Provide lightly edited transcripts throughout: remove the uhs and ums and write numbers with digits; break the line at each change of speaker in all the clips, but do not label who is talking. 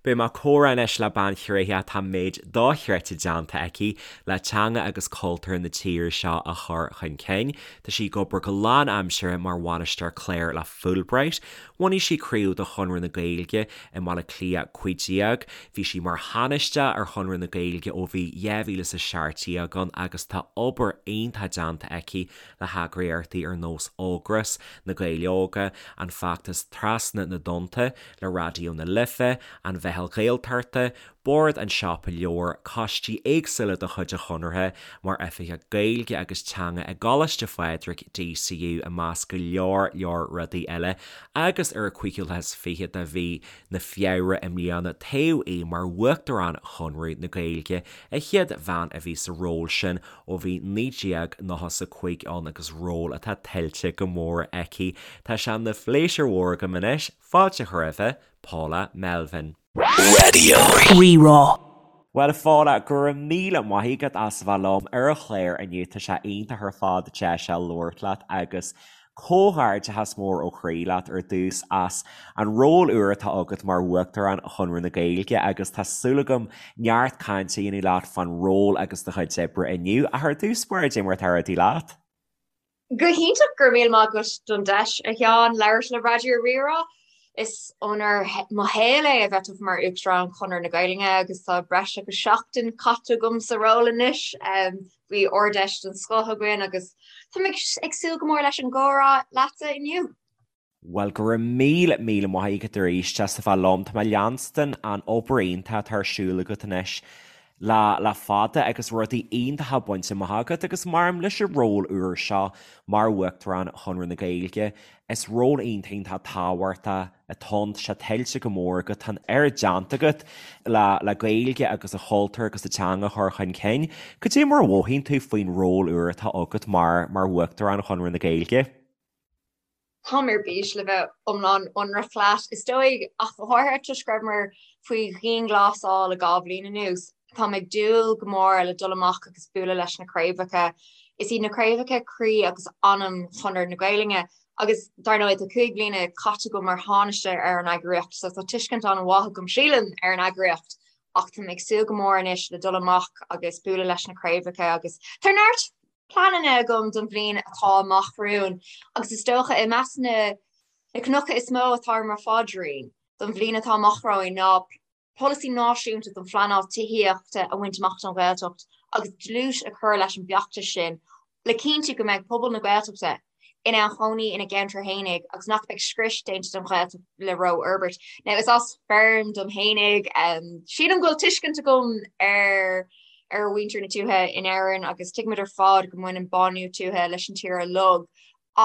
Beidh mé ag comhrá anois le bean thréitheach atá méid dochreidte déanta aici le teanga agus cultúr na tíre seo a chur chun cinn. Tá sí ag obair go lánaimseartha mar bhainisteoir cláir le Fulbright. Bhunaigh sí craobh de Chonradh na Gaeilge i mBaile Átha Cliath 15. Bhí sí mar Thánaiste ar Chonradh na Gaeilge ó bhí 2017 ann agus tá obair iontach déanta aici le heagraíochtaí ar nós Ógras, Na Gaeil Óga, an feachtas Trasna na dTonnta, le Raidió na Life, an Mheitheal Ghaeltachta, Bord an Siopa Leabhar, coistí éagsúla de chuid an Chonartha, mar Oifigeach Gaeilge agus Teanga i gColáiste Phádraig, DCU, i measc go leor leor rudaí eile, agus ar an 25ú de mhí na Feabhra i mbliana toghadh í mar Uachtarán Chonradh na Gaeilge, an chéad bhean a bhí sa ról sin ó bhí 1995 ann agus ról atá tuillte go mór aici. Tá sé ina phléisiúr mhór agam anois Fáilte a chur roimhe, Paula Melvin.
Raidió Rí-Rá.
Bhuel, a Phaula, go raibh míle maith agat as a bheith liom ar an chlár inniu. Tá sé iontach ar fad deis a labhairt leat agus comhghairdeachas mór ó chroí leat ar dtús as an ról úr atá agat mar Uachtarán Chonradh na Gaeilge agus tá súil agam neart cainte a dhéanamh leat fán ról agus do chuid oibre inniu. Ach ar dtús báire, cad é mar atá rudaí leat?
Go hiontach, go raibh míle maith agat don deis, a Sheáin, labhairt le Raidió Rí-Rá. Is onóir mo shaol é a bheith tofa mar Uachtarán Chonradh na Gaeilge agus tá breis agus seachtain caite agam sa ról anois. Bhí Ard-Fheis den scoth againn agus táim ag súil go mór leis an gcomhrá leatsa inniu.
Bhuel, go raibh míle, míle maith agat arís as a bheith liom. Tá mé ag leanstan an obair iontach atá ar siúl agat anois le le fada agus rudaí iontacha bainte amach agat agus maram leis an ról úr seo mar Uachtarán Chonradh na Gaeilge, is ról iontach iontach tábhachtach atá ann. Tá sé tuillte go mór agat, tá an oiread déanta agat le le Gaeilge agus an cultúr agus an teanga a chur chun cinn. Cad é mar a mhothaíonn tú faoin ról úr atá agat mar mar Uachtarán Chonradh na Gaeilge?
Táim ar bís le bheith iomlán ionraic leat. Is dóigh, ach go háirithe toisc go rabhamar faoi dhianghlasáil le 2 bhliain anuas, táim ag dúil go mór le dul amach agus bualadh leis na craobhacha. Is iad na craobhacha croí agus anam Chonradh na Gaeilge agus dar ndóigh tá 5 bliana caite agam mar Thánaiste ar an eagraíocht so tá tuiscint an-mhaith agam, sílim, ar an eagraíocht ach táim ag súil go mór anois le dul amach agus bualadh leis na craobhacha agus tá neart pleananna agam don bhliain atá amach romhainn agus is dócha i measc na cnoca is mó atá ar mo phaidrín don bhliain atá amach romhainn ná polasaí náisiúnta don phleanáil tithíochta a bhaint amach don Ghaeltacht agus dlús a chur leis an bhfeachtas sin le cinntiú go mbeidh pobal na Gaeltachta in ann cónaí ina gceantar fhéinig agus nach mbeidh scrios déanta den Ghaeltacht le rófhorbairt. Now is as feirm dom fhéinig, sílim go bhfuil tuiscint agam ar ar mhuintir na tuaithe in Éirinn agus tuigimid ar fad go mbaineann bánú tuaithe leis an tír uilig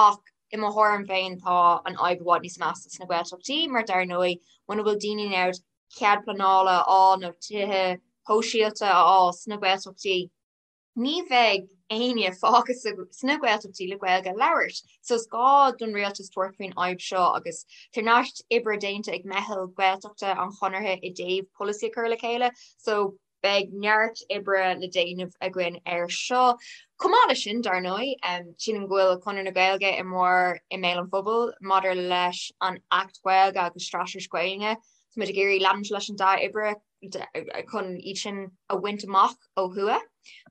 ach i mo thuairim féin tá an fhadhb i bhfad níos measa sna Gaeltachtaí mar dar ndóigh muna bhfuil daoine in ann cead pleanála a fháil nó tithe shóisialta a fháil sna Gaeltachtaí ní bheidh éinne fágtha sna Gaeltachtaí le Gaeilge a labhairt. So is gá don rialtas tabhairt faoin fhadhb seo agus tá neart oibre déanta ag meitheal Gaeltachta an Chonartha i dtaobh polasaí a chur le chéile so beidh neart oibre le déanamh againn air seo. Chomh maith leis sin, dar ndóigh, sílim go bhfuil Conradh na Gaeilge i mór i mbéal an phobail maidir leis an Acht Gaeilge agus Straitéis Gaeilge. Táimid ag iarraidh leanúint leis an dea-oibre chun iad sin a bhaint amach ó thuaidh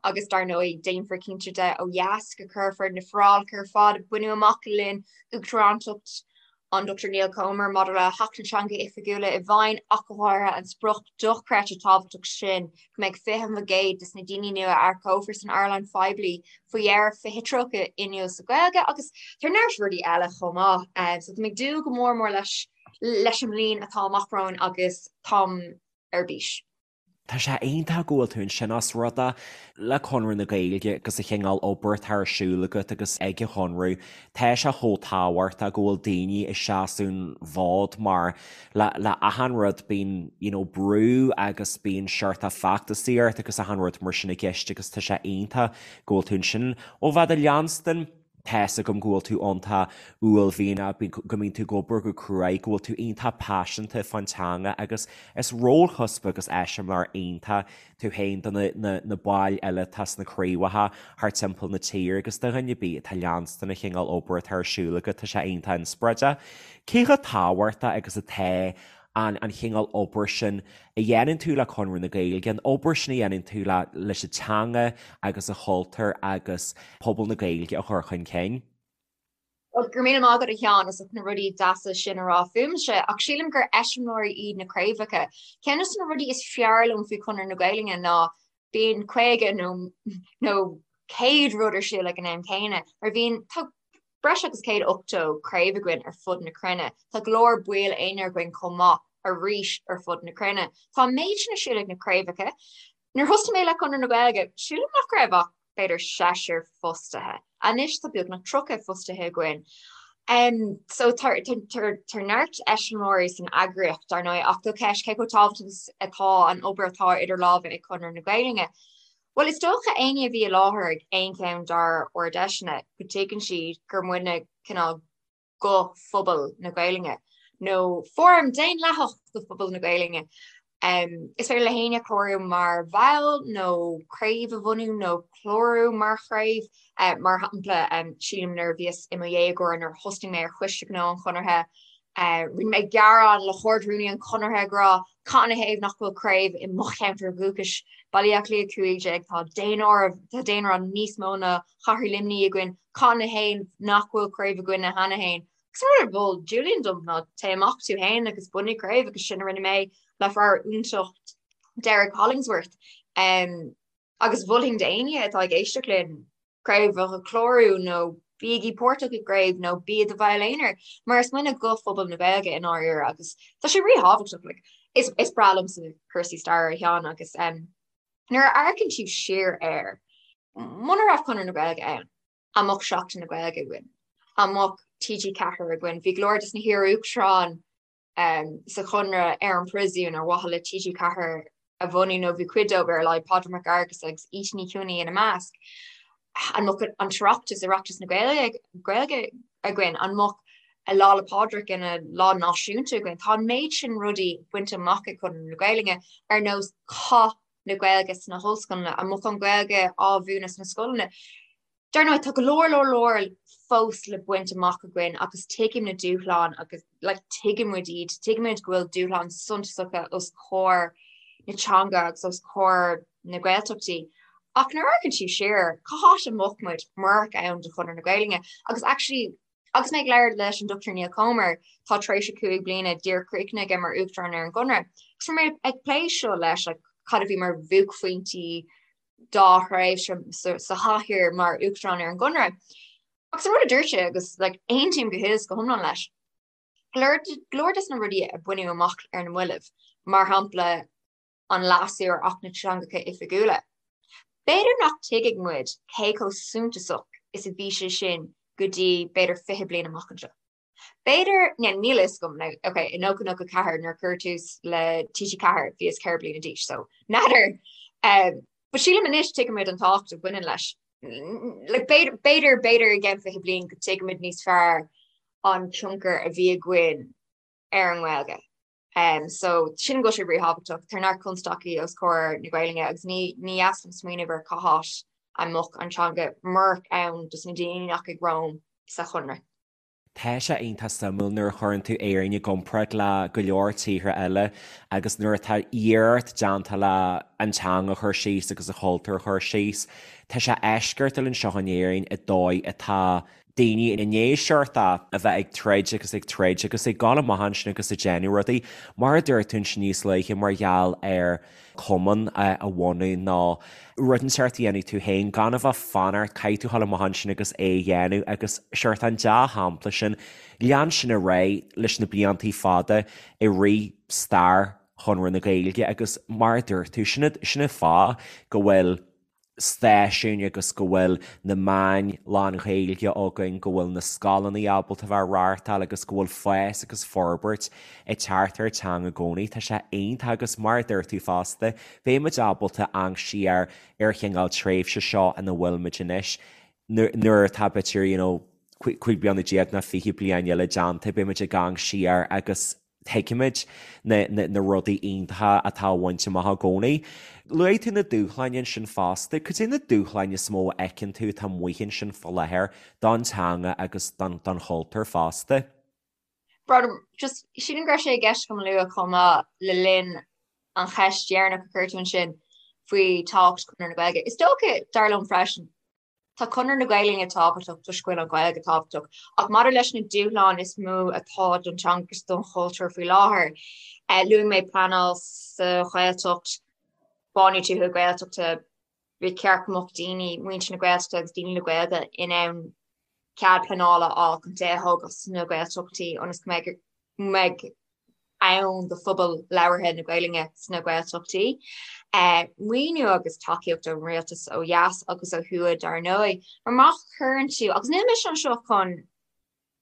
agus dar ndóigh déanfar cinnte de ó dheas go cuirfear na forálacha ar fad a baineadh amach le linn uachtarántacht an Dr Neil Comer maidir le hAcht na dTeangacha Oifigiúla i bhfeidhm ach go háirithe an sprioc dochreidte tábhachtach sin go mbeidh 20% de na daoine nua a earcófar san earnáil phoiblí faoi dheireadh 2030 inniúil sa Ghaeilge agus tá neart rudaí eile chomh maith. So táim ag dúil go mór mór leis leis an mbliain atá amach romhainn agus táim ar bís.
Tá sé iontach go bhfuil tú ansin os rud é le Conradh na Gaeilge agus an chineál obair atá ar siúl agat agus ag an Chonradh, tá sé chomh tábhachtach go bhfuil daoine ag seasamh an fhóid mar le le achan rud bíonn you know brú agus bíonn seort feachtasaíocht agus achan rud mar sin i gceist agus tá sé iontach go bhfuil tú ansin. Ó bheith do leanstan Tá's agam go bhfuil tú iontach uaillmhianach, go mbíonn tú ag obair go cruaidh, go bhfuil tú iontach paiseanta fán teanga agus is rólchuspa agus eiseamláir iontach tú féin do na baill eile atá sna craobhacha thart timpeall na tíre agus do dhuine ar bith atá ag leanstan an chineál obair atá ar siúl agat, tá sé iontach inspioráideach. Cé chomh tábhachtach agus atá. an an chineál obair sin a dhéanann tú le Conradh na Gaeilge, an obair sin a dhéanann tú le leis an teanga agus an chultúr agus pobal na Gaeilge a chur chun cinn.
Bhuel, go raibh míle maith agat a Sheáin as ucht na rudaí deasa sin a rá fúmse, ach sílim gur eiseamláirí iad na craobhacha. Ceann de na rudaí is fearr liom faoi Chonradh na Gaeilge ná bíonn 50 nó nó 100 rud ar siúl ag an am céanna, mar bhíonn tá breis agus 180 craobh againn ar fud na cruinne. Tá go leor baill aonair againn chomh maith arís ar fud na cruinne. Tá an méid sin ar siúl ag na craobhacha. Nuair a thosaigh mé le Conradh na Gaeilge, sílim nach raibh ach b'fhéidir seisear fostaithe. Anois tá beagnach 30 fostaithe againn. Um, so tá neart eiseamláirí san eagraíocht dar ndóigh ach do cheist cé chomh tábhachtach atá an obair atá idir lámha ag Conradh na Gaeilge. Bhuel is dócha éinne a bhí i láthair ag aon cheann dár ard-fheiseanna go dtuigeann siad gur muidne cineál guth phobal na Gaelainne, nó fóram daonlathach do phobal na Gaelainne. Is féidir le héinne clárú mar bhall nó craobh a bhunú nó clárú mar chraobh. Mar shampla, sílim nuair a bhíos i mo dhéagóir nuair a thosnaigh mé ar Choiste Gnó an Chonartha, rinne mé gearán le hArd-Rúnaí an Chonartha ag rá cad ina thaobh nach bhfuil craobh i mo cheantar dhúchais, Baile Átha Cliath 15, tá daonáireamh, tá daonra níos mó ná Chathair Luimnigh againn, cad ina thaobh nach bhfuil craobh againne cheana féin? Agus an rud a mhol Julian dom ná téigh amach tú féin agus bunaigh craobh agus sin a rinne mé le fear iontach Derek Hollingsworth. Um, agus mholfainn d'éinne atá ag éisteacht linn craobh a chlárú nó bígí páirteach i gcraobh nó bí i do bhall aonair, mar is muidne guth phobal na Gaeilge i ndáiríre agus tá sé ríthábhachtach. Like, is, is breá liomsa cúrsaí staire a Sheáin agus um, nuair a amharcann tú siar air, Muna raibh Conradh na Gaeilge ann, an mbeadh Seachtain na Gaeilge againn? An mbeadh TG4 againn? Bhí go leor des na hiar-uachtaráin sa Chonradh ar an bpríosún ar mhaithe le TG4 a bhunú, nó bhí cuid dóibh ar a laghad, Pádraig Mac Fhearghusa agus Íte Ní Chionnaith ina measc. An mbeadh an tOireachtas, Oireachtas na Gaeilge againn? An mbeadh Lá 'le Pádraig ina lá náisiúnta againn? Tá an méid sin rudaí bainte amach ag Conradh na Gaeilge, ar nós Cath na Gaeilge sna hollscoileanna, an mbeadh an Ghaeilge á mhúineadh sna scoileanna. Dar ndóigh, tá go leor leor leor fós le baint amach againn agus tuigim na dúshláin agus like, tuigeann muid iad, tuigeann muid go bhfuil dúshláin suntasacha os comhair na teanga agus os comhair na Gaeltachtaí. Ach nuair a amharcann tú siar, cá háit a mbeadh muid murach ann do Chonradh na Gaeilge? Agus actually, Agus mé ag labhairt leis an Dr Neil Comer, tá tar éis a 5 bliana díreach críochnaithe aige mar Uachtarán ar an gConradh, agus bhí mé ag plé seo leis, like, cad a bhí mar bhuaicphointí dá thréimhse sa chathaoir mar Uachtarán ar an gConradh. Agus an rud a dúirt sé, agus like, aontaím go huile is go hiomlán leis, go leor des na rudaí a baineadh amach ar na mallaibh, mar shampla, an leasú ar Acht na dTeangacha Oifigiúla. B'fhéidir nach dtuigfidh muid cé chomh suntasach is a bhí sé sin go dtí b'fhéidir 20 bliain amach anseo. B'fhéidir, yeah, níl a fhios agam, now, ok, i 1994 nuair a cuireadh tús le TG4 bhíos 4 bliana d'aois, so n'fheadar. Um, but sílim anois tuigimid an tábhacht a bhaineann leis. Like, b'fhéidir, b'fhéidir, b'fhéidir i gceann 20 bliain go dtuigfimid níos fearr an tionchar a bhí againn ar an nGaeilge. Um, so sin go bhfuil sé ríthábhachtach, tá neart constaicí os comhair na Gaelainne agus ní ní dheas liom smaoineamh ar cá háit a mbeadh an teanga murach ann dos na daoine nach ag romham sa Chonradh.
Tá sé iontach suimiúil nuair a chuireann tú Éirinn i gcomparáid le go leor tíortha eile agus nuair atá iarracht déanta le an teanga a chur síos agus an chultúr a chur síos. Tá sé eisceachtúil anseo in Éirinn i dóigh atá daoine i ndiaidh seort a bheith ag troid agus ag troid agus ag dul amach ansin agus ag déanamh rudaí, mar a dúirt tú ansin níos luaithe, mar gheall ar chumann a bhunú nó rud inteacht a dhéanamh tú féin, gan a bheith ag fanacht, caithfidh tú dul amach ansin agus é a dhéanamh agus seort an dea-shampla sin, lean sin ar aghaidh leis na bliantaí fada i rith stair Chonradh na Gaeilge agus mar a dúirt tú, sin an fáth go bhfuil stáisiúin agus go bhfuil na meáin lán-Ghaeilge againn, go bhfuil na scoileanna ábalta a bheith á reáchtáil agus go bhfuil fás agus forbairt ag teacht ar an teanga i gcónaí. Tá sé iontach agus mar a dúirt tú fosta, beidh muid ábalta amharc siar ar an chineál tréimhse seo ina bhfuil muid anois nuair atá b'fhéidir you know 15 bliana nó 20 bliain eile déanta, beidh muid ag amharc siar agus tuigfimid na rudaí iontacha atá á bhaint amach i gcónaí. Luaigh tú na dúshláin ansin fosta. Cad é na dúshláin is mó a fheiceann tú atá amuigh ansin faoi láthair don teanga agus don chultúr fosta?
Brother, just sílim go raibh sé i gceist agam a lua chomh maith le linn an cheist dheireanach a chuir tú ansin faoi tábhacht Chonradh na Gaeilge. Is dócha, dar liom freisin, tá Conradh na Gaeilge tábhachtach toisc go bhfuil an Ghaeilge tábhachtach, ach maidir leis na dúshláin is mó atá don teanga agus don chultúr faoi láthair, luaigh mé pleanáil sa Ghaeltacht, bánú tuaithe Gaeltachta, ba cheart go mbeadh daoine, muintir na Gaeltachta agus daoine le Gaeilge in ann cead pleanála a fháil chun tithe a thógáil sna Gaeltachtaí ionas go mbeidh ann do phobal labhartha na Gaelainne sna Gaeltachtaí. Maoiniú agus tacaíocht ón rialtas ó dheas agus ó thuaidh dar ndóigh. Mar má chuireann tú, agus níl mise anseo chun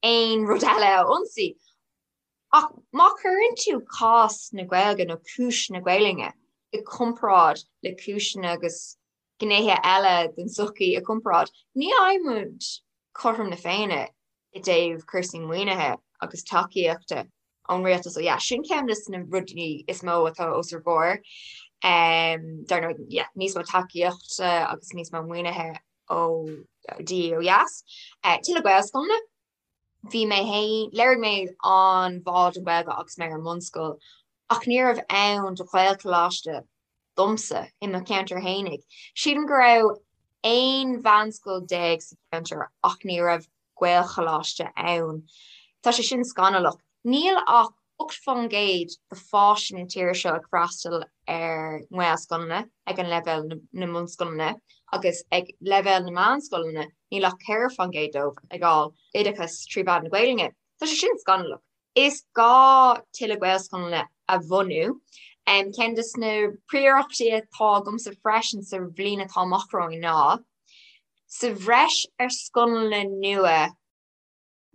aon rud eile a ionsaí, ach má chuireann tú cás na Gaeilge nó cúis na Gaelainne i gcomparáid le cúiseanna agus gnéithe eile den tsochaí i gcomparáid, ní fhaighimid cothrom na Féinne i dtaobh cúrsaí maoinithe agus tacaíochta ón rialtas ó dheas. Sin ceann de na rudaí is mó atá os ár gcomhair. Dar ndóigh, yeah, níos mó tacaíochta agus níos mó maoinithe ó de dhíth ó dheas. Tuilleadh Gaelscoileanna. Bhí mé féin, léirigh mé an-bhá don Ghaeilge agus mé ar an mbunscoil, ach ní raibh ann do Ghaelcholáiste domsa i mo cheantar fhéinig. Sílim go raibh 11 mheánscoil sa cheantar ach ní raibh Gaelcholáiste ann. Tá sé sin scannalach. Níl ach 8% de pháistí na tíre seo ag freastal ar nGaelscoileanna ag an leibhéal na mbunscoileanna agus ag leibhéal na meánscoileanna níl ach 4% dóibh ag fháil oideachas trí mheán na Gaelainne. Tá sé sin scannalach. Is gá tuilleadh Gaelscoileanna a bhunú. Ceann de na príorachtaí atá agamsa freisin sa bhliain atá amach romhainn ná, sa bhreis ar scoileanna nua,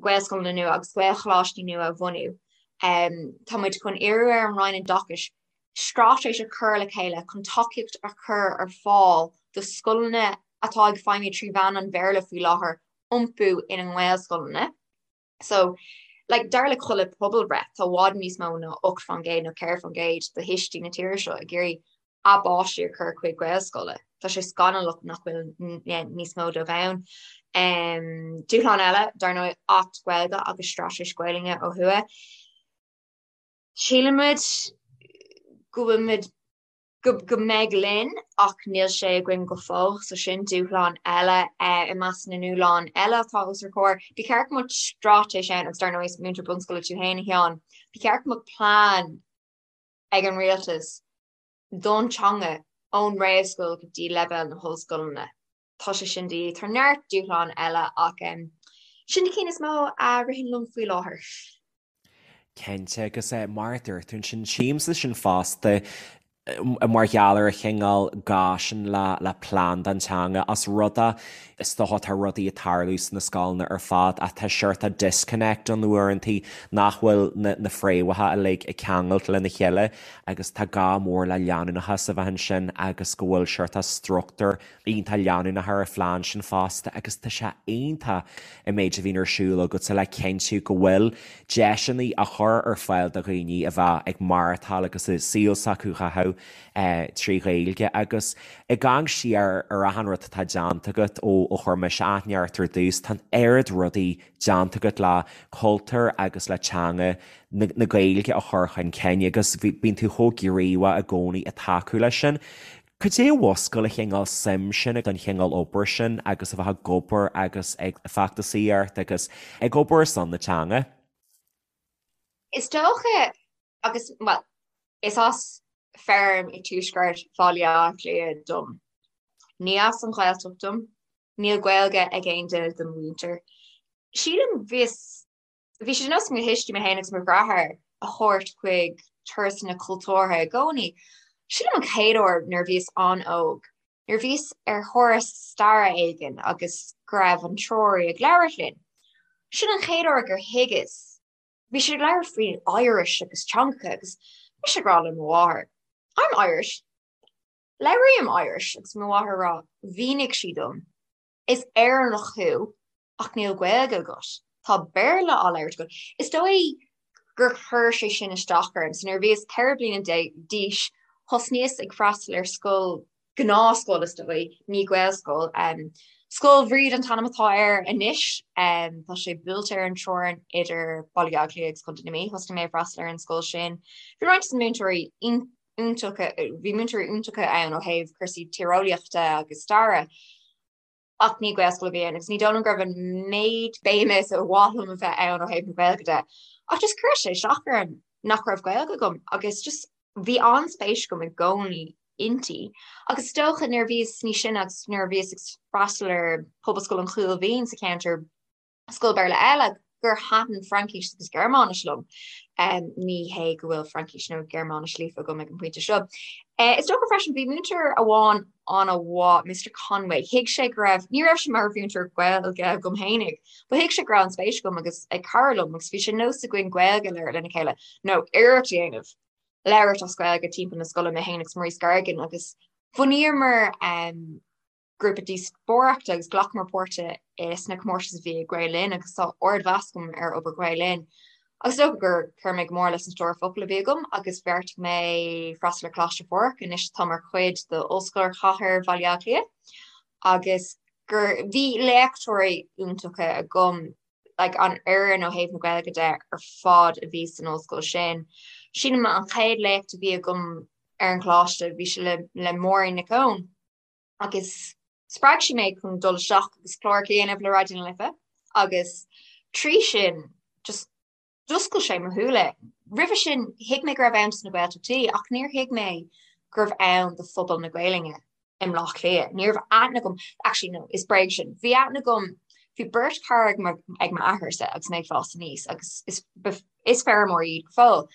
Gaelscoileanna nua agus Gaelcholáistí nua a bhunú. Tá muid chun iarraidh ar an Roinn Oideachais straitéis a chur le chéile chun tacaíocht a chur ar fáil do scoileanna atá ag feidhmiú trí mheán an Bhéarla faoi láthair iompú ina nGaelscoileanna. So, like, dar le chuile pobalbhreith, tá i bhfad níos mó ná 8% nó 4% de thuistí na tíre seo ag iarraidh a bpáistí a chur chuig Gaelscoile. Tá sé scannalach nach bhfuil níos mó dóibh ann. Dúshlán eile, dar ndóigh, Acht Gaeilge agus Straitéis Gaelainne ó thuaidh. Sílimid go bhfuilimid go mbeidh linn ach níl sé againn go fóill, so sin dúshlán eile i measc na ndúshlán eile atá os ár gcomhair. Ba cheart go mbeadh straitéis ann agus dar ndóigh is múinteoir bunscoile tú féin a Sheáin, ba cheart go mbeadh plean ag an rialtas don teanga ón réamhscoil go dtí leibhéal na hollscoileanna. Tá sé sin de dhíth. Tá neart dúshlán eile ach sin na cinn is mó a ritheann liom faoi láthair.
Cinnte, agus mar a dúirt tú ansin, tchímse sin fosta mar gheall ar an chineál gá sin le plean don teanga os rud é is dócha tá rudaí ag tarlú sna scoileanna ar fad ach tá seort disconnect ann uaireantaí nach bhfuil na fréamhacha uilig ag ceangailt lena chéile agus tá gá mór le leanúnachas a bheith ansin agus go bhfuil seort struchtúr iontach leanúnach ar an phlean sin fosta agus tá sé iontach an méid a bhíonn ar siúl agatsa le cinntiú go bhfuil deiseanna á chur ar fáil do dhaoine a bheith ag maireachtáil agus a saol s'acu a chaitheamh trí Ghaeilge agus ag amharc siar ar achan rud atá déanta agat ó chuir mise aithne ort ar dtús, tá an oiread rudaí déanta agat le cultúr agus le teanga na Gaeilge a chur chun cinn agus bíonn tú chomh gníomhach i gcónaí ag tacú leis sin. Cad é a mhúscail an chineál suim sin don chineál obair sin agus a bheith ag obair agus ag feachtasaíocht agus ag obair ar son na teanga?
Is dócha, agus, bhuel, is as feirm i dtuaisceart Bhaile Átha Cliath dom. Ní as an Ghaeltacht dom. Níl Gaeilge ag aon duine de mo mhuintir. Sílim, bhíos Bhí sé de nós ag mo thuistí mé féin agus mo dheartháir a thabhairt chuig turasanna cultúrtha i gcónaí. Sílim an chéad uair nuair a bhíos an-óg, nuair a bhíos ar thuras staire éigin agus go raibh an treoraí ag labhairt linn. Sin an chéad uair gur thuigeas. Bhí sé ag labhairt faoi Irish agus teangacha agus mise ag rá le mo mháthair, I'm Irish. Labhraím Irish agus mo mháthair ag rá, mhínigh sí dom, is Éireannach thú ach níl Gaeilge agat. Tá Béarla á labhairt agat. Is dóigh gur chuir sé sin isteach orm. So nuair a bhíos 14 bliana d'aois, thosnaíos ag freastal ar scoil, gnáthscoil is dóigh, ní Gaelscoil, um, Scoil Bhríde an t-ainm atá air anois. Tá sé buailte ar an teorainn idir Baile Átha Cliath agus Contae na Mí. Thosnaigh mé ag freastal ar an scoil sin. Bhí roinnt de na múinteoirí iontacha, bhí múinteoirí iontacha ann ó thaobh cúrsaí tíreolaíochta agus staire, ach ní Gaelscoil a bhí ann agus ní dóigh liom go raibh an méid béime is a mhaith liom a bheith ann ó thaobh na Gaeilge de. Ach just chuir sé isteach orm nach raibh Gaeilge agam agus just bhí an-spéis agam i gcónaí inti. Agus is dócha nuair a bhíos níos sine agus nuair a bhíos ag freastal ar Pobalscoil an Chúil Mhín sa cheantar, scoil Béarla eile, gur thaitin Fraincis agus Gearmáinis liom. Ní hé go bhfuil Fraincis nó Gearmáinis líofa agam ag an bpointe seo. Is dócha freisin bhí múinteoir amháin an-mhaith, Mr Conway, thuig sé go raibh, ní raibh sé mar mhúinteoir Gaeilge agam fhéinig, but thuig sé go raibh an spéis agam agus ag cara liom agus bhí sé nós againn Gaeilge a labhairt lena chéile nó iarracht a dhéanamh. labhairt as Gaeilge timpeall na scoile, mé féin agus Maurice Gargan agus bhunaíomar grúpa díospóireachta agus ghlacamar páirt sna comórtais a bhí ag Gael Linn agus tá ardmheas agam ar obair Ghael Linn. Agus is dócha gur chuir mé go mór leis an stór focal a bhí agam agus bheartaigh mé freastal ar Choláiste Phádraig, anois atá mar chuid d'Ollscoil Chathair Bhaile Átha Cliath agus gur bhí léachtóirí iontacha agam like an fhoireann ó thaobh na Gaeilge de ar fad a bhí san ollscoil sin. Sílim an chéad léacht a bhí agam ar an choláiste bhí sé le le Máirín Nic Eoin agus spreag sí mé chun dul isteach agus clár a dhéanamh le Raidió na Life agus trí sin just d'oscail sé mo shúile. Roimhe sin thuig mé go raibh ann dos na Gaeltachtaí ach níor thuig mé gurbh ann do phobal na Gaelainne i mBleá Cliath. Ní raibh aithne agam, actually no, is bréag sin. Bhí aithne agam, bhí beirt chara ag m'athairse agus mé ag fás aníos agus is, is feirmeoirí iad go fóill.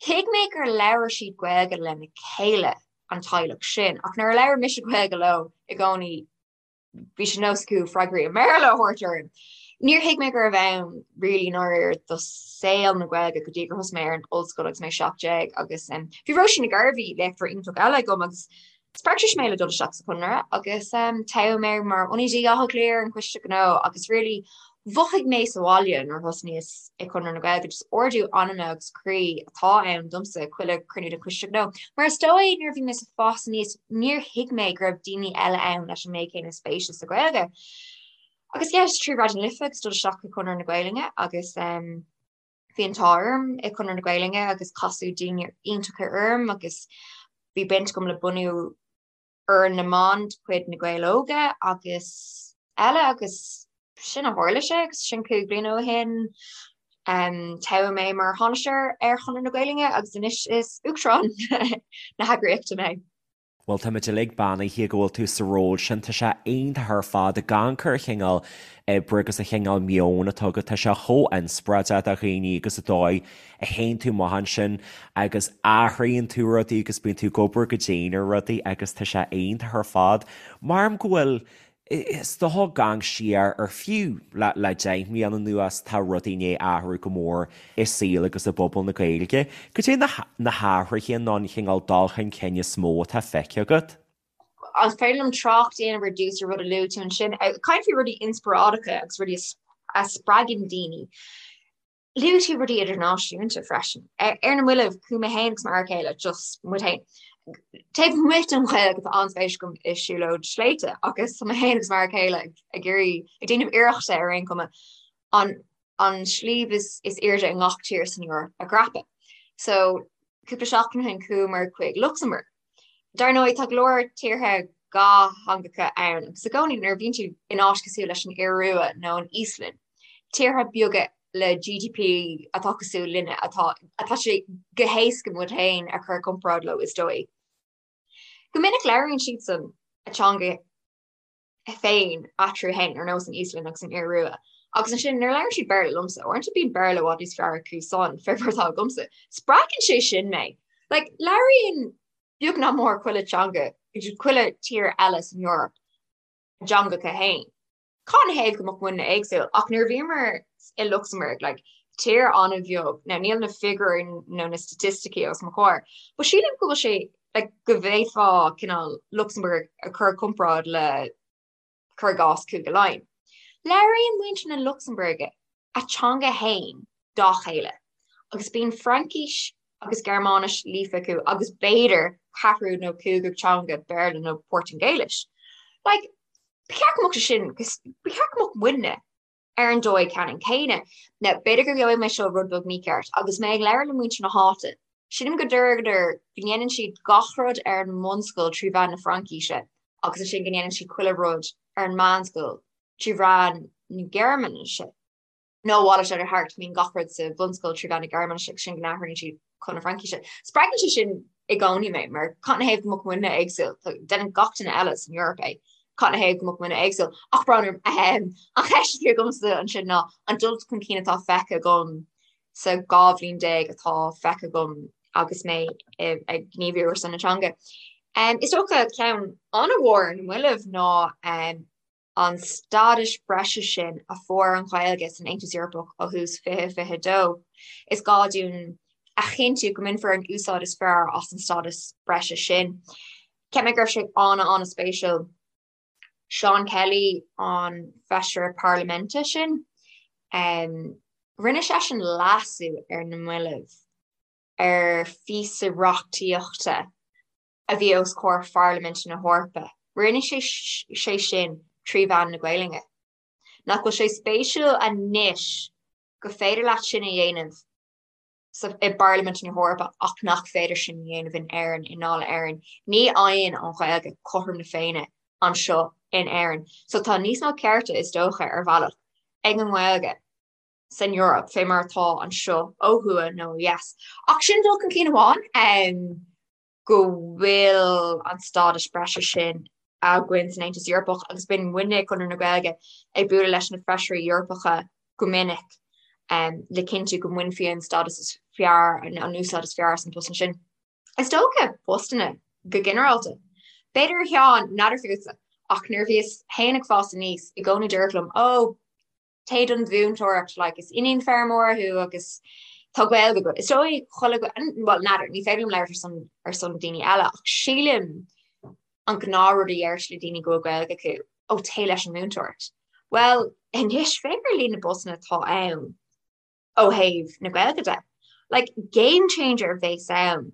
Thuig mé gur labhair siad Gaeilge lena chéile, an teaghlach sin, ach nuair a labhair mise Gaeilge leo i gcónaí bhí sé nós acu freagraí i mBéarla a thabhairt orm. Níor thuig mé gurbh ann really i ndáiríre do saol na Gaeilge go dtí gur thosaigh mé ar an ollscoil agus mé 17 agus bhí Róisín Nic Gairbhí, léachtóir iontach eile agam agus spreag sise mé le dul isteach sa Chonradh agus toghadh mé mar ionadaí Átha Cliath ar an Choiste Gnó agus really mhothaigh mé sa bhaile nuair a thosnaíos i Conradh na Gaeilge, just ardú anama agus croí atá ann domsa chuile chruinniú den Choiste Gnó. Mar is dóigh nuair a bhí mé ag fás aníos níor thuig mé go raibh daoine eile ann leis an méid céanna spéise sa Ghaeilge. Agus yeah, just trí Raidió na Life agus dul isteach i Conradh na Gaelainne agus um, bhí an t-ádh orm i Conradh na Gaelainne agus casadh daoine iontacha orm agus bhí baint agam le bunú Fhoireann na mBan de chuid Na Gaeil Óga agus eile agus sin a tharla sé agus sin 5 bliana ó shin. Toghadh mé mar thánaiste ar Chonradh na Gaelainne agus anois is Uachtarán na heagraíochta mé.
Bhuel, táimid uilig beannaithe go bhfuil tú sa ról sin. Tá sé iontach ar fad ag amharc ar an chineál oibre agus an chineál meoin atá agat. Tá sé chomh inspioráideach do dhaoine agus an dóigh a théann tú amach ansin agus athraíonn tú rudaí agus bíonn tú ag obair go dian ar rudaí agus tá sé iontach ar fad. Maram go bhfuil, is dócha ag amharc siar ar fiú le le 10 mbliana anuas tá rudaí i ndiaidh athrú go mór i saol agus i bpobal na Gaeilge. Cad é na na hathruithe nó an chineál dul chun cinn is mó atá feicthe agat?
An féidir liom trácht a dhéanamh ar dtús ar rud a luaigh tú ansin? Caint faoi rudaí inspioráideacha agus rudaí a spreagann daoine. Luaigh tú rudaí idirnáisiúnta freisin. Ar na mallaibh, chuaigh mé féin agus m'fhear céile, just muid féin, taobh amuigh den Ghaeilge tá an-spéis agam i siúlóid sléibhte agus tá mé féin agus m'fhear céile ag iarraidh, ag déanamh iarrachta ar aon chuma, an an sliabh is is airde i ngach tír san Eoraip a dhreapadh. So, cúpla seachtain ó shin chuamar chuig Lucsamburg. Dar ndóigh, tá go leor tíortha dhátheangacha ann agus i gcónaí nuair a bhíonn tú in áit cosúil leis an Iorua nó an Íoslainn, tíortha beaga le GDP atá cosúil linne, atá atá sé go héasca muid féin a chur i gcomparáid leo is dóigh. Go minic labhraíonn siadsan a teanga féin eatarthu féin, ar nós an Íoslainn agus an Iorua. Agus ansin nuair a labhrann siad Béarla liomsa, uaireanta bíonn Béarla i bhfad níos fearr acu san fé mar atá agamsa. Spreagann sé sin mé. Like, labhraíonn beag nach mór chuile teanga, chuile tír eile san Eoraip a dteangacha féin. Cad ina thaobh go mbeadh muidne éagsúil? Ach nuair a bhíomar i Lucsamburg, like, tír an-bheag, now níl na figiúirí nó na staitisticí os mo chomhair, but sílim go bhfuil sé like, go bhféadfá cineál Lucsamburg a chur i gcomparáid le cuir i gcás Cúige Laighean. Labhraíonn muintir na Lucsambuirge a teanga fhéin dá chéile agus bíonn Fraincis agus Gearmáinis líofa acu agus b'fhéidir ceathrú nó cúigiú teanga Béarla nó Portaingéilis. Like, Ba cheart go mbeadh sé sin, ba cheart go mbeadh muidne ar an dóigh ceannann céanna. Now, b'fhéidir go gheobhaidh mé seo rud beag mícheart, agus mé ag labhairt le muintir na háite, sílim go ndeireadar go ndéanann siad gach rud ar an mbunscoil trí mheán na Fraincíse agus ansin go ndéanann siad chuile rud ar an meánscoil trí mheán na Gearmáinise. Nó a mhalairt ar thart, bíonn gach rud sa bhunscoil trí mheán na Gearmáinise agus ansin go n-athraíonn siad chun na Fraincíse. Spreagann sé sin i gcónaí mé, mar cad 'na thaobh go mbeadh muidne éagsúil? Déanann gach duine eile san Eoraip é. Cad 'na thaobh go mbeadh muidne éagsúil? Ach brón orm, an cheist a bhí agamsa ansin ná an dul chun cinn atá feicthe agam sa 12 bhliain atá feicthe agam agus mé ag gníomhú ar son na teanga. Is dócha ceann an-mhór ar na mallaibh ná an stádas breise sin a fuair an Ghaeilge san Aontas Eorpach ó thús 2022. Is gá dúinn a chinntiú go mbainfear an úsáid is fearr as an stádas breise sin. Cheap mé go raibh sé an-an-spéisiúil. Seán Kelly, an feisire parlaiminte sin, rinne seisean leasú ar na mallaibh ar phíosa reachtaíochta a bhí os comhair Pharlaimint na hEorpa. Rinne sé sé sin trí mheán na Gaelainne. Nach bhfuil sé spéisiúil anois go féidir leat sin a dhéanamh sa i bParlaimint na hEorpa ach nach féidir sin a dhéanamh in Éirinn, i nDáil Éireann. Ní fhaigheann an Ghaeilge cothrom na Féinne anseo in Éirinn. So tá níos mó cearta, is dócha, ar bhealach, ag an nGaeilge san Eoraip fé mar atá anseo ó thuaidh nó ó dheas. Ach sin dul chun cinn amháin. go bhfuil an stádas breise sin againn san Aontas Eorpach agus bíonn muidne ag Conradh na Gaeilge ag bualadh leis na feisirí Eorpacha go minic le cinntiú go mbainfí an stádas is fearr, an úsáid is fearr as an post sin. Is dócha postanna go ginearálta. B'fhéidir a Sheáin, n'fheadar fútsa, ach nuair a bhíos féin ag fás aníos, i gcónaí dúradh liom, 'Ó, téigh don mhúinteoireacht, like, is iníon feirmeora thú agus tá Gaeilge agat. Is dóigh chuile, bhuel, n'fheadar, ní féidir liom labhairt ar son, ar son daoine eile, ach sílim an gnáthrud a deirtear le daoine go bhfuil Gaeilge acu, ó téigh leis an mhúinteoireacht. Bhuel, anois, féach ar líon na bpostanna atá ann ó thaobh na Gaeilge de. Like, game changer a bheas ann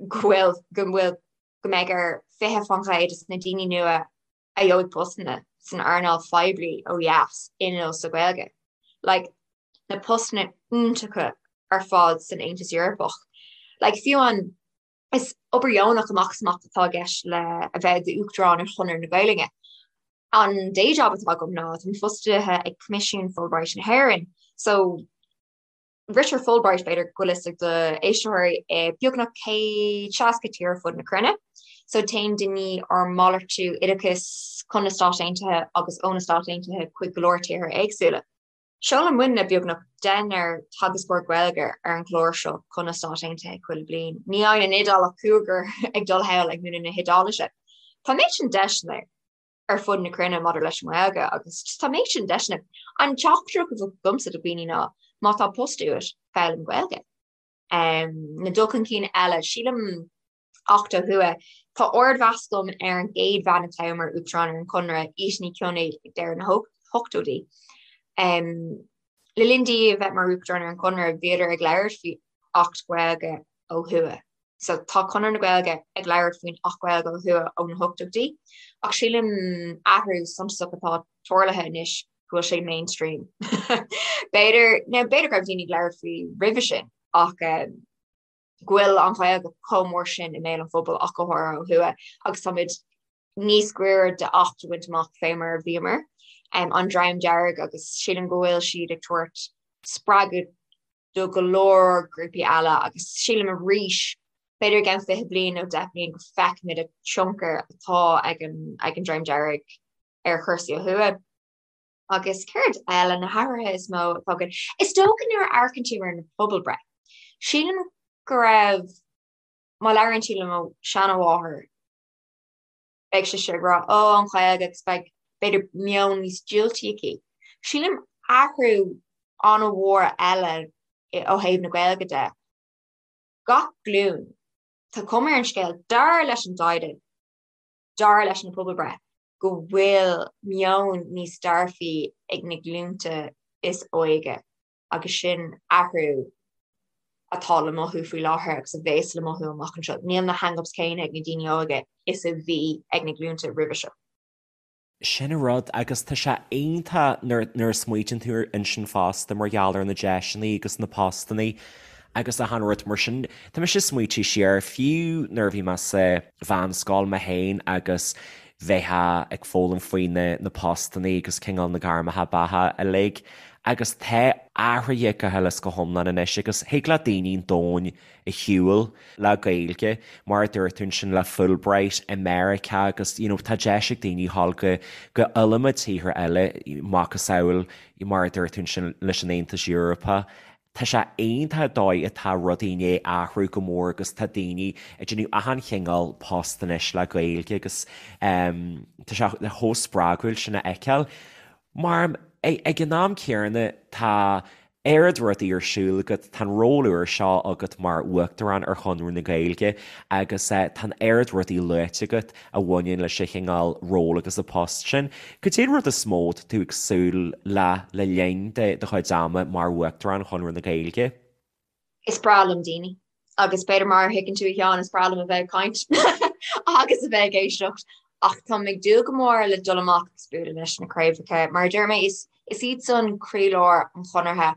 go bhfuil, go bhfuil, go mbeidh ar 20% de na daoine nua a gheobhaidh postanna san earnáil phoiblí ó dheas inniúil sa Ghaeilge. Like, na postanna iontacha ar fad san Aontas Eorpach. Like, fiú an, is obair dheonach amach is amach atá i gceist le a bheith i d'Uachtarán ar Chonradh na Gaeilge. An day job atá agam ná táim fostaithe ag Coimisiún Fulbright na hÉireann. So, Ritear Fulbright, b'fhéidir go bhfuil fhios ag do éisteoirí, i beagnach 160 tír ar fud na cruinne. So téann daoine ar malartú oideachais chun na Stát Aontaithe agus ó na Stáit Aontaithe chuig go leor tíortha éagsúla. Seolann muidne beagnach deichniúr teagascóir Gaeilge ar an gclár seo chun na Stát Aontaithe chuile bliain. Ní fhaigheann an Iodáil ach cúigear ag dul thall ag múineadh na hIodáilise. Tá an méid sin deiseanna. ar fud na cruinne maidir leis an nGaeilge agus tá an méid sin deiseanna. An teachtaireacht a bheadh agamsa do dhaoine ná má tá post uait, foghlaim Gaeilge. Um, na dul chun cinn eile, sílim Acht ó thuaidh, tá ardmheas agam ar an gcéad bhean a toghadh mar Uachtarán ar an Chonradh, Íte Ní Chionnaith ag deireadh na hochtóidí. Um, le linn di a bheith mar Uachtarán ar an Chonradh, bhíodar ag labhairt faoi Acht Gaeilge ó thuaidh. So tá Conradh na Gaeilge ag labhairt faoin Acht Gaeilge ó thuaidh ó na hochtóidí, ach sílim athrú suntasach atá tarlaithe anois go bhfuil sé mainstream. B'fhéidir, now b'fhéidir go raibh daoine ag labhairt faoi roimhe sin, ach um, go bhfuil an Ghaeilge chomh mór sin i mbéal an phobail ach go háirithe ó thuaidh agus táimid níos gaire d'Acht a bhaint amach fé mar a bhíomar um, an Dream Dearg agus sílim go bhfuil siad ag tabhairt spreagadh do go leor grúpaí eile agus sílim arís b'fhéidir i gceann 20 bliain nó 10 bliain go feicfimid an tionchar atá ag an ag an Dream Dearg ar chúrsaí ó thuaidh. Agus céard eile na hathruithe is mó atá againn? Is dócha nuair a amharcann tú ar na pobalbhreith. Sílim go raibh má labhraíonn tú le mo seanamháthair beidh sise ag rá ó an Ghaeilge agus beidh b'fhéidir meon níos diúltaí aici. Sílim athrú an-mhór eile ó thaobh na Gaeilge de. Gach glúin, tá cuma ar an scéal, dar leis an dtaighde, dar leis na pobalbhreith, go bhfuil meon níos dearfaí ag na glúnta is óige. agus sin athrú atá le mothú faoi láthair agus a bhéas le mothú amach anseo. Níl na hang-ups céanna ag na daoine óga is a bhí ag na glúnta roimhe seo.
Sin an rud, agus tá sé iontach nuair a smaoitíonn tú ansin fosta mar gheall ar na deiseanna agus na postanna agus achan rud mar sin. Tá mise ag smaoitiú siar, fiú nuair a bhí mé sa mheánscoil mé féin agus bheifeá ag foghlaim faoi na postanna agus cineál na gairmeacha beatha uilig agus tá athraithe go huile is go hiomlán anois agus thig le daoine an domhain a shiúl le Gaeilge, mar a dúirt tú ansin le Fulbright i Meiriceá agus you know tá deis ag daoine dhul go go iliomad tíortha eile, macasamhail mar a dúirt tú ansin leis an Aontas Eorpach. Tá sé iontach an dóigh atá rudaí i ndiaidh athrú go mór agus tá daoine ag déanamh achan chineál post anois le Gaeilge agus tá sé chomh spreagúil sin a fheiceáil. Mar ag an am céanna tá oiread rudaí ar siúl agat, tá an ról úr seo agat mar Uachtarán ar Chonradh na Gaeilge agus tá an oiread rudaí luaite agat a bhaineann leis an chineál ról agus an post sin. Cad é an rud is mó atá tú ag súil le le linn do chuid ama mar Uachtarán Chonradh na Gaeilge?
Is breá liom daoine agus b'fhéidir mar a thuigeann tú a Sheáin, is breá liom a bheith ag caint agus a bheith ag éisteacht ach táim ag dúil go mór le dul amach agus bualadh leis na craobhacha. Mar a deir mé, is is iad san croílár an Chonartha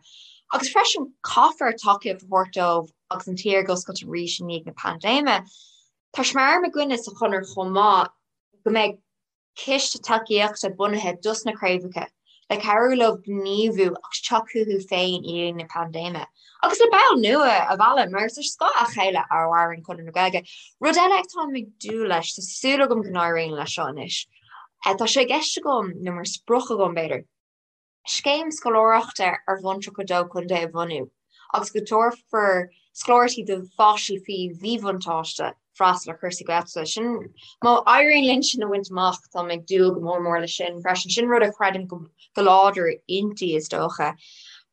agus freisin caithfear tacaíocht a thabhairt dóibh agus an tír ag oscailt arís i ndiaidh na paindéime. Tá sé mar aidhm againne sa Chonradh chomh maith go mbeidh ciste tacaíochta bunaithe dos na craobhacha le cabhrú leo gníomhú agus teacht chucu féin i ndiaidh na paindéime agus le baill nua a mhealladh mar is ar scáth a chéile a mhaireann Conradh na Gaeilge. Rud eile atáim ag dúil leis, tá súil agam go n-éiríonn leis seo anois, tá sé i gceist agam, nó mar sprioc agam b'fhéidir, scéim scoláireachta ar bhonn 32 contae a bhunú agus go dtabharfar scoláireachtaí do pháistí faoi mhíbhuntáiste freastal ar chúrsaí Gaeltachta. Sin, má éiríonn linn sin a bhaint amach, táim ag dúil go mór mór leis sin freisin. Sin rud a chreidim go láidir inti, is dócha,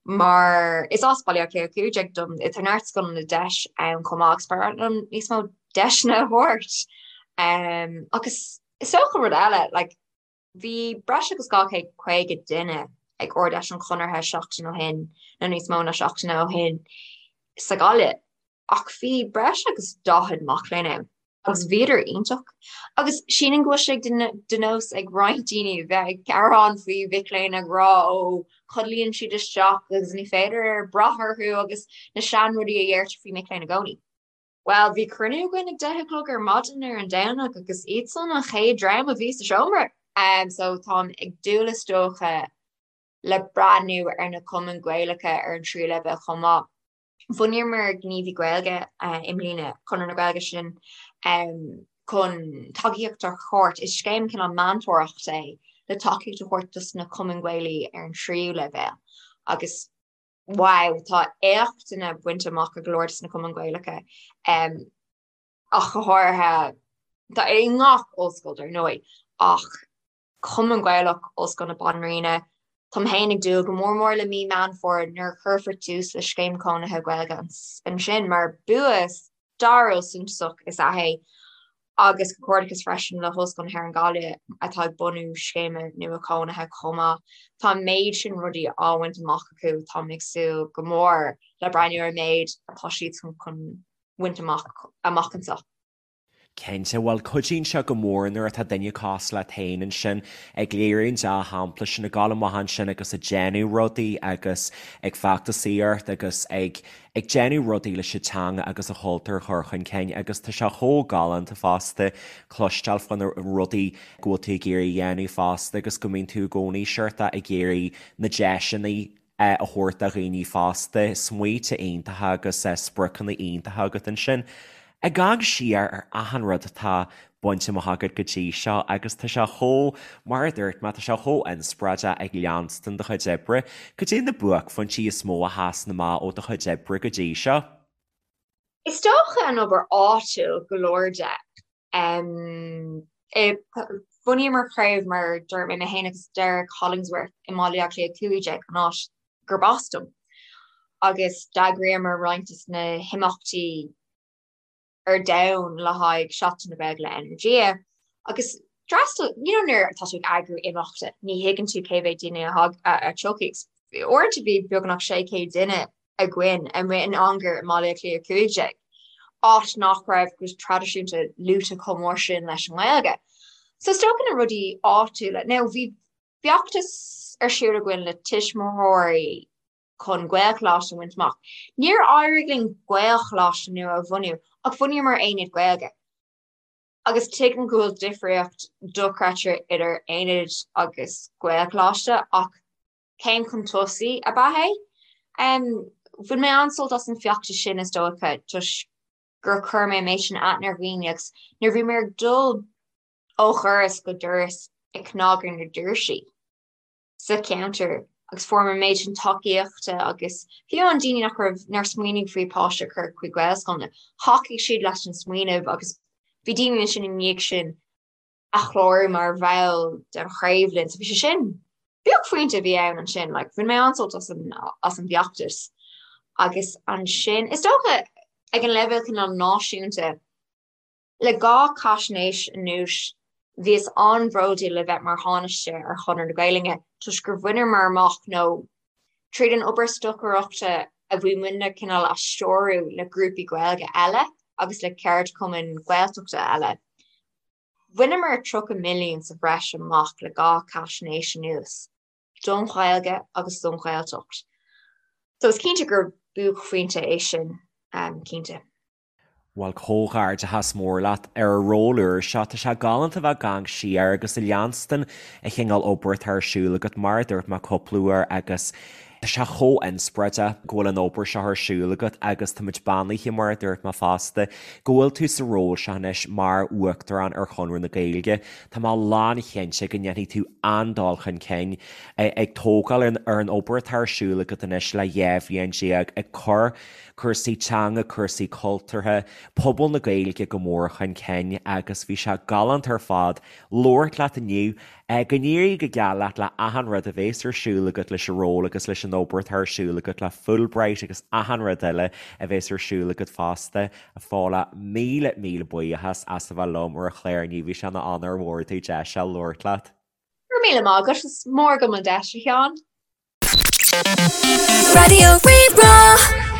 mar is as Baile Átha Cliath 15 dom, tá neart scoileanna deis ann chomh maith agus ba mhaith liom níos mó deiseanna a thabhairt. Agus is dócha rud eile, like, Bhí breis agus 250 duine ag Ard-Fheis an Chonartha seachtain ó shin, nó níos mó ná seachtain ó shin, sa Ghaillimh, ach bhí breis agus 40 mac léinn ann agus bhíodar iontach. Agus sílim go bhfuil sé de nós ag roinnt daoine bheith ag gearán faoi mhic léinn ag rá ó codlaíonn siad isteach agus ní féidir brath orthu agus na seanrudaí a dheirtear faoi mic léinn i gcónaí. Bhuel, bhí cruinniú againn ag 10 a chlog ar maidin ar an Domhnach agus iadsan an chéad dream a bhí sa seomra. Um, so táim ag dúil is dócha le breathnú ar na cumainn Gaelacha ar an tríú leibhéal chomh maith. Bhunaíomar Gníomhaí Gaeilge uh, i mbliana, Conradh na Gaeilge sin um, chun tacaíocht a thabhairt, is scéim cineál meantóireachta é le tacaíocht a thabhairt dos na cumainn Ghaelaí ar an tríú leibhéal. Agus wow, tá éachtanna bainte amach ag go leor de na cumainn Ghaelacha, ach go háirithe, tá i ngach ollscoil dar ndóigh, ach Cumann Gaelach Ollscoil na Banríona, táim féin ag dúil go mór mór le mí Meán Fómhair nuair a chuirfear tús le Scéim Cónaithe Gaeilge ansin mar bua stairiúil suntasach is ea é agus comhghairdeachas freisin le hOllscoil na hÉireann Gaillimh atá ag bunú scéime nua cónaithe chomh maith. Tá an méid sin rudaí á bhaint amach acu, táim ag súil go mór le breathnú ar an méid atá siadsan chun bhaint amach amach anseo.
Cinnte, bhuel cuidíonn sé go mór nuair atá duine cosúil leat féin ansin ag léiriú an dea-shampla sin, ag dul amach ansin agus ag déanamh rudaí agus ag feachtasaíocht agus ag ag déanamh rudaí leis an teanga agus an chultúr a chur chun cinn agus tá sé chomh galánta fosta cloisteáil faoi na rudaí go bhfuil tú ag iarraidh a dhéanamh fosta agus go mbíonn tú i gcónaí sórt ag iarraidh na deiseanna a thabhairt do dhaoine fosta, smaointe iontacha agus spriocanna iontacha agat ansin. Ag amharc siar ar achan rud atá bainte amach agat go dtí seo agus tá sé chomh, mar a dúirt mé, tá sé chomh inspioráideach ag leanstan do chuid oibre. Cad é na buaicphointí is mó a sheasann amach ó do chuid oibre go dtí seo?
Is dócha an obair áitiúil go leor de. Bhunaíomar craobh mar dúirt mé, mé féin agus Derek Hollingsworth i mBaile Átha Cliath 15, an áit gurb as dom, agus d'eagraíomar roinnt de na himeachtaí ar domhan le haghaidh Seachtain na Gaeilge le Energia agus d'fhreastail, you know nuair atá tú ag eagrú imeachta, ní thuigeann tú cé mhéad duine a thiocfaidh. Uaireanta bhí beagnach 600 duine againn amuigh in anger i mBaile Átha Cliath 15, áit nach raibh go traidisiúnta luaite chomh mór sin leis an nGaeilge. So is dócha na rudaí áitiúla. Now bhí feachtas ar siúl againn le tuismitheoirí chun Gaelcholáiste a bhaint amach. Níor éirigh linn Gaelcholáiste nua a bhunú ach bhunaíomar aonad Gaeilge. Agus tuigim go bhfuil difríocht dochreidte idir aonad agus Gaelcholáiste ach céim chun tosaigh ab ea é. Bhain mé an-sult as an feachtas sin is dócha toisc gur chuir mé an méid sin aithne ar dhaoine agus nuair a bhí mé ag dul ó dhoras go doras ag cnagadh ar na doirsí sa cheantar agus fuair mé an méid sin tacaíochta agus fiú an daoine nach raibh nár smaoinigh faoi páiste a chur chuig Gaelscoileanna, thacaigh siad leis an smaoineamh agus bhí daoine ansin i ndiaidh sin a chlárú mar bhall den chraobh linn. So bhí sé sin buaicphointe a bhí ann ansin, like, bhain mé an-sult as an, as an bhfeachtas. Agus ansin, is dócha ag an leibhéal cineál náisiúnta, le 2 chaisnéis anuas, bhíos an-bhródúil le bheith mar Thánaiste ar Chonradh na Gaelainne toisc gur bhaineamar amach nó tríd an obair stocaireachta a bhí muidne cineál a stiúradh le grúpaí Gaeilge eile agus le ceardchumainn Gaeltachta eile. Bhaineamar 30 milliún sa bhreis amach le 2 chaisnéis anuas, don Ghaeilge agus don Ghaeltacht. So is cinnte gur buaicphointe é sin, cinnte.
Bhuel, comhghairdeachas mór leat ar an ról úr seo. Tá sé galánta bheith ag amharc siar agus ag leanstan an chineál obair atá ar siúl agat, mar a dúirt mé cúpla uair, agus tá sé chomh inspioráideach go bhfuil an obair seo ar siúl agat agus táimid beannaithe, mar a dúirt mé fosta, go bhfuil tú sa ról seo anois mar Uachtarán ar Chonradh na Gaeilge. Tá mé lánchinnte go ndéanfaidh tú an-dul chun cinn ag tógáil ar an obair atá ar siúl agat anois le 12 bhliain, ag cur cúrsaí teanga, cúrsaí cultúrtha, pobal na Gaeilge go mór chun cinn agus bhí sé galánta ar fad labhairt leat inniu. Go n-éirí go geal leat le achan rud a bhéas ar siúl agat leis an ról agus leis an obair atá ar siúl agat le Fulbright agus achan rud eile a bhéas ar siúl agat fosta. A Phaula, míle míle buíochas as a bheith liom ar an chlár inniu, bhí sé ina onóir mhór domh deis a labhairt leat.
Go raibh míle maith agat, is mór agam an deis, a Sheáin. Raidió Rí-Rá.